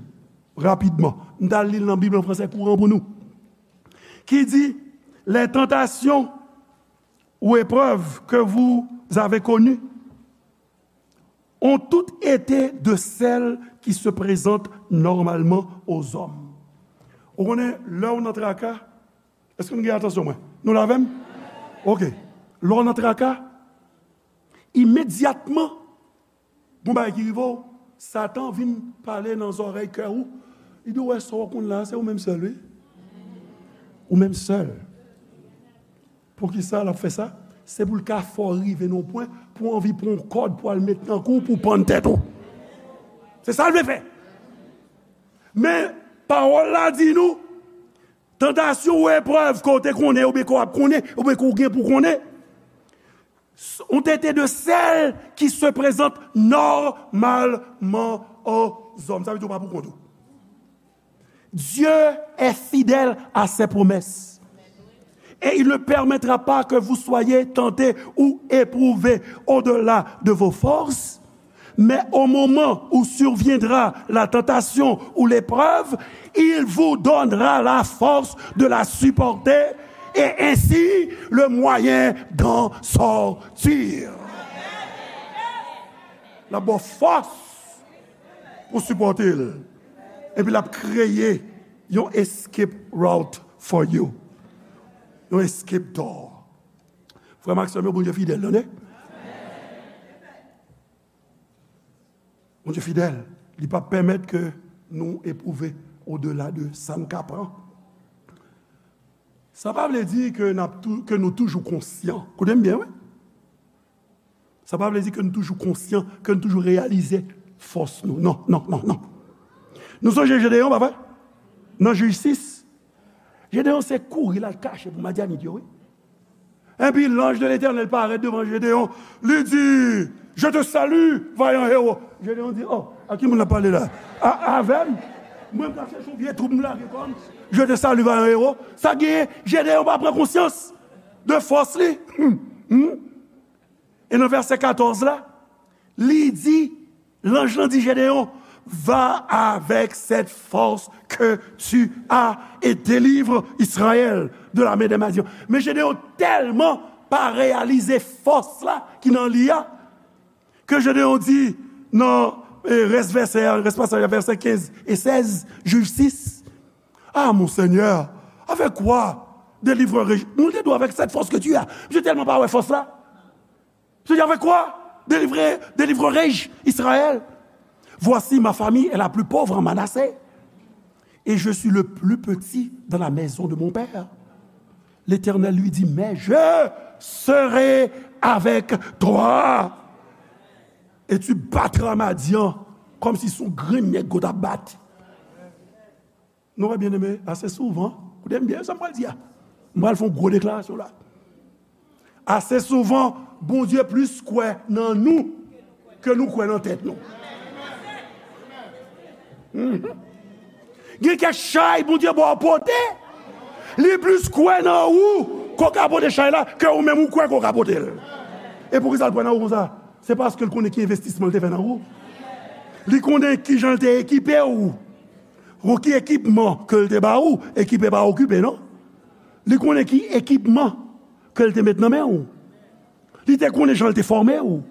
Rapidman, m t al li l nan Bib an fransè kouran pou nou. Qui dit, les tentations ou épreuves que vous avez connues ont toutes été de celles qui se présentent normalement aux hommes. Ou konnen, lè w nan traka, èske nou gen atansyon mwen? Nou la avè m? Ok. Lè w nan traka, imedyatman, gon bagay ki rive w, Satan vin pale nan zòrèy kè ou. Li di w, wè sa w konn la, se ou menm sèl, wi. Ou menm sèl. Poukisa l ap fè sa? Se pou l ka fè w rive nan yon pwen, pou w anvi pran yon kòd pou al met nan kou w, pou w pann tèt ou. Se sa l vle fè. Men, pawòl la di nou, tantasyon ou eprèv ke w te konnen, oubyen ke w ap konnen, oubyen ke w gen pou konnen, ont été de celles qui se présentent normalement aux hommes. Sa vle di w pa pou kont ou. Dieu est fidèle à ses promesses. Et il ne permettra pas que vous soyez tentés ou éprouvés au-delà de vos forces, mais au moment où surviendra la tentation ou l'épreuve, il vous donnera la force de la supporter et ainsi le moyen d'en sortir. L ap ba w fòs pou sipòte l. Epi l ap kreye yon escape route for you. Yon escape door. Frè m ak sè m yo, Bondye fidèl, tande. Bondye fidèl, li p ap pèmèt ke nou epwouve odela de sa n ka pran. Sa pa vle di ke n ap tou-, ke nou toujou konsyan. Koute m byen, wi. Sa pa vle di ke nou toujou konsyan, ke nou toujou reyalize fòs nou. Non, non, non, non. Nou sonje Jedeyon, pa vre? Nan Jij sis, Jedeyon se kouri l al kache pou Madyanit yo, wi. Epi, l'ange de l'Éternel parèt devan Jedeyon. Li di, "Je te salue, vaillant héros." Jedeyon di, "Oh, a ki moun l ap pale la? A, avè m? Mwen, m ka chèche yon vye twoup m lage kò m. Je te salue, vaillant héros." Sa genyen, Jedeyon pa pran konsyans de fòs li. Hmm, hmm. E nan vèsè katòz la, li di, lanj lan di Jedeyon, "Va avec cette force que tu as et délivre Israël de la main des Madian." Men Jedeyon tèlman pa reyalize fòs la ki nan li a, ke Jedeyon di nan, eh, rès vèsè a, rès pasaj a, vèsè kenz e sèz, Jij sis, "Ah, mon Seigneur, avec quoi délivrerai-je?" Moun te dwe avec cette force que tu as. Misye tèlman pa wè fòs la. Seigneur, avec quoi délivrer, délivrerai-je Israël? Voici, ma famille est la plus pauvre en Manassé, et je suis le plus petit dans la maison de mon père. L'Éternel lui dit, mais je serai avec toi, et tu battras Madian comme si son grenn nèg ou t ap bat. Nou wè, byeneme, ase souvan, koute m byen sa m pral di a. M pral fè yon gwo deklarasyon la. Ase souvan, Bondye plis kwè nan nou ke nou kwè nan tèt nou. Mhm. Gen kèk chay Bondye ba w pote, li plis kwè nan ou ke w ka pote chay la ke ou menm ou kwè ke w ka pote l. E poukisa l kwè nan ou konsa? Se paske l konnen ki envestisman l te fè nan ou. Li konnen kijan l te ekipe w. Ou ki ekipman ke l te ba ou, ekipe pa okipe, non? Li konnen ki ekipman ke l te met nan men ou. Li te konnen jan l te fòme ou.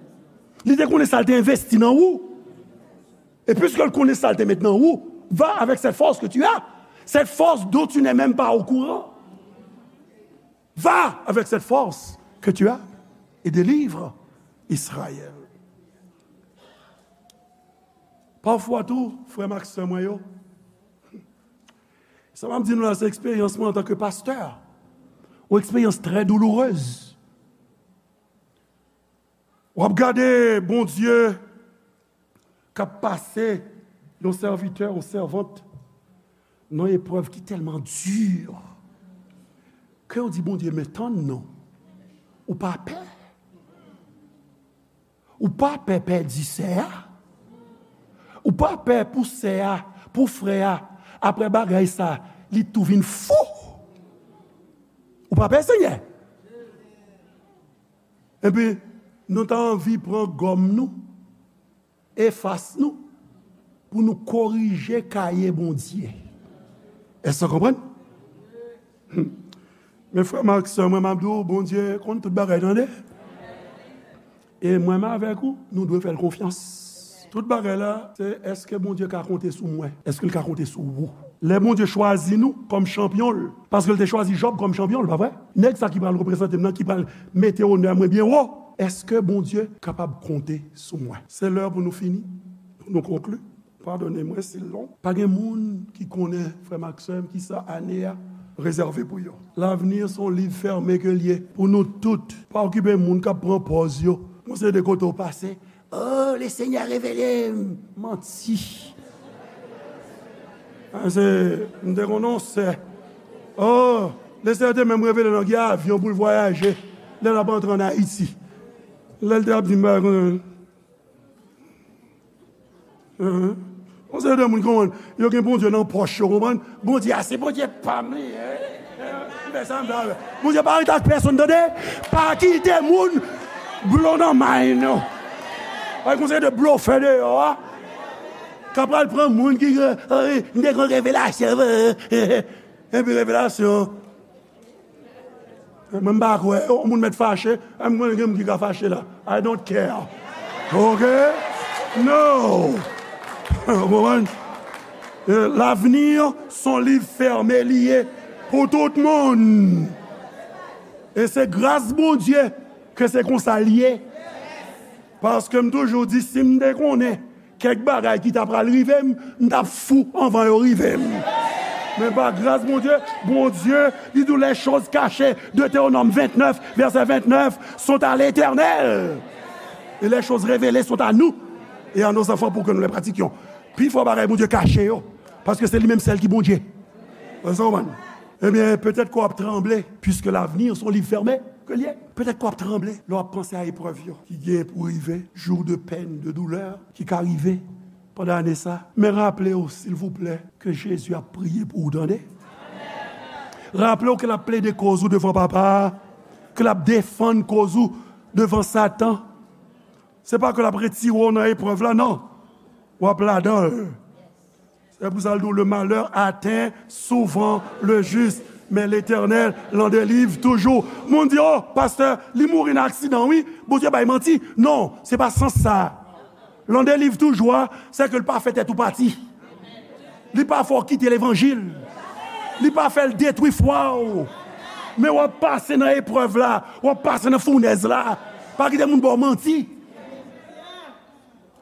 Li te konnen sa l te envesti nan ou. E piske l konnen sa l te met nan ou, va avec cette force que tu as, cette force dont tu n'es même pas au courant. Va avec cette force que tu as et délivre Israël. Pafwa tou, frè m ak sè mwen yo, sa m ap di nou la, se eksperyans mwen antanke pastè. Yon eksperyans trè doulourez. W ap gade Bondye k ap pase yon sèvitè, yon sèvant, nan eprèv ki tèlman di, ke w di, "Bondye, men tann non. Ou pa pè? Ou pa pè pèdi sè a? Ou pa pè pou sè a, pou frè a, apre bagay sa, li tou vin fou? Ou pa pè, Senyè?" Epi, nou ta anvi pran gòm nou, efas nou, pou nou korije kaye Bondye. Èske w konprann? Hmm. Men frè m ak sè mwen, m ap di w, Bondye konn tout bagay, tande. E mwen menm avèk ou, nou dwe fè l konfyans. Tout bagay la, se èske Bondye ka konte sou mwen? Èske l ka konte sou ou? Lè Bondye chwazi nou kòm chanpyon l, paske l te chwazi Jòb kòm chanpyon l, pa vre? Nèg sa ki pral reprezante m nan, ki pral mete onè mwen byen wo, èske Bondye kapab konte sou mwen? Se lè pou nou fini, pou nou konkli. Padone mwen si l long. Pa gen moun ki konnen, frè m ak sè m, kisa ane a rezève pou yo. L'avenir se yon liv fèmen ke l ye pou nou tout. Pa okipe moun k ap pran pòz yo. Yon seri de kote w pase, "Oh, le Senyè revele m." Manti. Ah, se, m te konn yon sè. Oh, le Senyè te menm revele l nan gen avyon pou l vwayaje lè l ap antre ann Ayiti. Lè l te ap di m bagay konsa. Yon seri de moun konprann, yo gen Bondye nan pòch yo, konprann? Bondye a, se Bondye pa m li ye. M fè sa m vle avè l. Bondye pa rete ak pèsonn, tande. Pa kite moun blo nan may nou. Pa yon seri de blofè deyò a, k ap pral pran moun ki, eh, m te gen revelasyon, eh, epi revelasyon. Mwen, m pa kwè. Yon moun mèt fache, mwen gen moun ki ka fache la. I don't care. Ok? No! Ou konprann? Eh, l'avenir se yon liv fèmen li ye pou tout moun. E se gras Bondye ke se konsa l ye. Paske m toujou di, si m te konnen kèk bagay ki ta pral rive m, m t ap fou anvan yo rive m. Men pa gras Bondye, Bondye, li di w les choses cachées, Deutéronome vingt-neuf, verset vingt-neuf, sont à l'Éternel. Et les choses révélées sont à nous et à nos enfants pour que nous les pratiquions. Pi fò bagay Bondye kache yo, paske se li menm sèl ki Bondye. Wè sa w konprann? Ebyen, petèt ke w ap tranble, puisque l'avenir, se yon liv fèmen ke l ye. Petèt ke w ap tranble lè w ap panse a eprèv yo ki gen pou rive, jou de pèn, de doulè ki ka rive pandan ane sa. Men raple w, silvouplè, ke Jezi ap priye pou ou, tande. Raple w ke l ap plede koz ou devan Papa a, ke l ap defann koz ou devan Satan. Se pa ke l ap retire w nan eprèv la, non. W ap ladan l. Se pou sa l di w, le malheur atteint souvent le juste, mais l'Éternel l'en délivre toujours. Moun di, oh, pastè, li mouri nan aksidan, wi. Bondye bay manti. Non, se pa sans sa. L'en délivre toujours a, se ke l pa fè tèt ou pati. Li pa fè w kite levanjil. Li pa fè l detwi fwa w. Men w ap pase nan eprèv la, w ap pase nan founèz la. Pa kite moun ba w manti.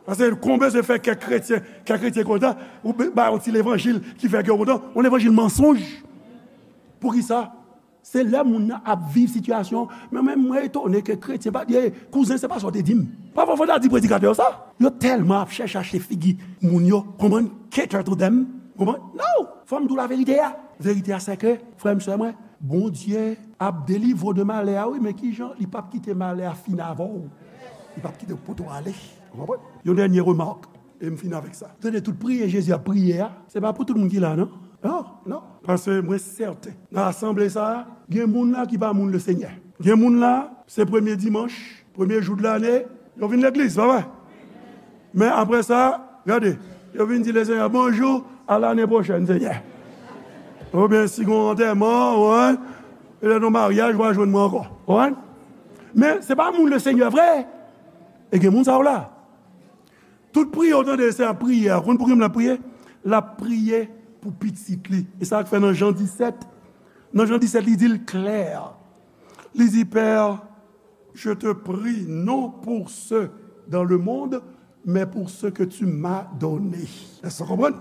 Paske konbyen se fè kèk kretyen, kèk kretyen kontan, ou ba yon ti levanjil ki fè kè w kontan, yon levanjil mansonj. Poukisa? Se lè moun nan ap viv sitiyasyon, men menm mwen etone ke kretyen pa, eh, kouzen, se pa sa w te di m. Pafwa fò w ta di predikatè yo sa. Yo tèlman ap chèche achte figi moun yo, konprann, cater to them, konprann? No! Fò m di w laverite a. Verite a se ke, frè m, sè mwen, Bondye ap delivre w de malè a, wi, men kijan li p ap kite malè a fin avè w. Li p ap kite w pote w ale. Ou konprann? Yon dènye remak, e m fini avèk sa. Tande, tout priyè Jezi ap priye a, se pa pou tout moun ki la, non. Non, non. Paske mwen sèten, nan asanble sa a, gen moun la ki pa moun Lesenyè. Gen moun la, se premye dimanch, premye jou de lane, yo vin legliz, pa vre? Men apre sa, gade, yo vin di Lesenyè bonjou, a lane pwochèn, Senyè. Oubyen si gon antèman, ou konprann, petèt yon maryaj, w a jwenn mwen ankò. Ou konprann? Men se pa moun Lesenyè vre. E gen moun sa yo la. Tout priyè w tande se ap priye a. Konn pou ki moun l ap priye? L ap priye pou pitit li. E sa k fè nan Jan disèt, nan Jan disèt, li di l klè. Li di, Père, je te prie non pour ceux dans le monde, mais pour ceux que tu m'as donnés. Èske w konprann?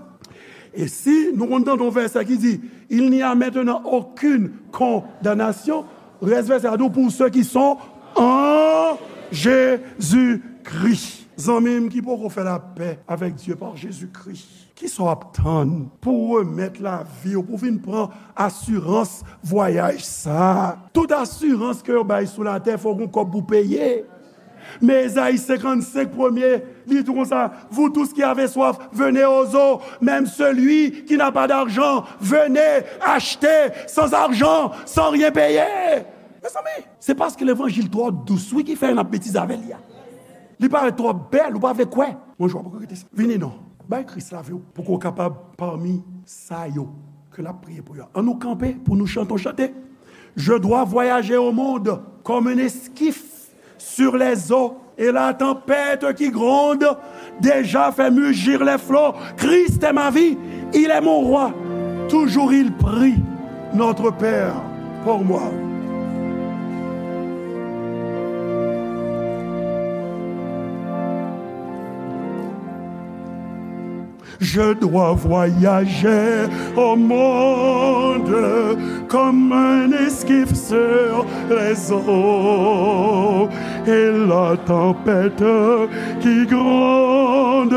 E si nou konn tande yon vèsè ki di, il n'y a maintenant aucune condamnation, rès vèsè a di w, pour ceux qui sont en Jésus-Christ. Zanmi m ki poko fè lapè avèk Dye pa Jezikri, kisa w ap tann pou w remèt lavi w, pou w vin pran asirans vwayaj sa a? Tout asirans ke yo bay sou latè, fò w gen kòb pou w peye. Men Ezayi senkannsenk premye, li di konsa, vous tous qui avez soif, venez aux eaux, même celui qui n'a pas d'argent, venez acheter sans argent, sans rien payer. Mezanmi, se paske levanjil twò dous, wi, ki fè n ap betize avè li a. Li parèt twò bèl, ou pa vle kwè. Mwen, jwa pou rete sa. Vini non. Bay Kris lavi w pou ke w kapab pami sa yo ke l ap priye pou yo. An nou kanpe pou nou chante yon chante. Je dois voyager au monde comme un esquif sur les eaux, et la tempête qui gronde déjà fait mugir les flots. Christ est ma vie, il est mon roi, toujours il prie, notre Père, pour moi. Je dois voyager au monde comme un esquif sur les eaux. Et la tempête qui gronde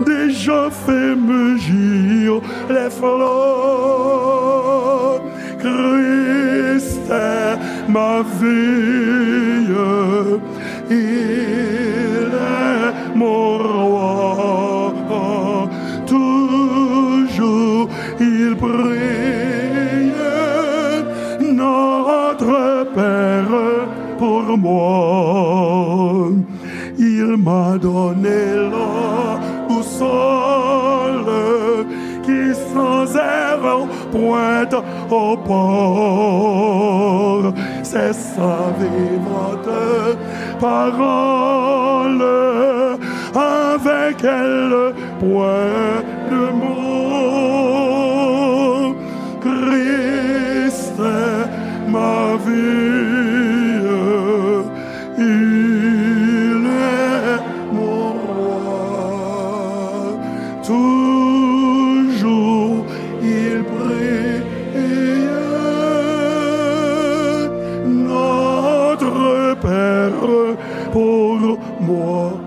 déjà fait mugir les flots. Christ est ma vie, il est mon roi. Toujours il prie, notre Père, pour moi. Il m'a donné la boussole qui sans erreur pointe au port. C'est sa vivante parole avec elle, point de mort.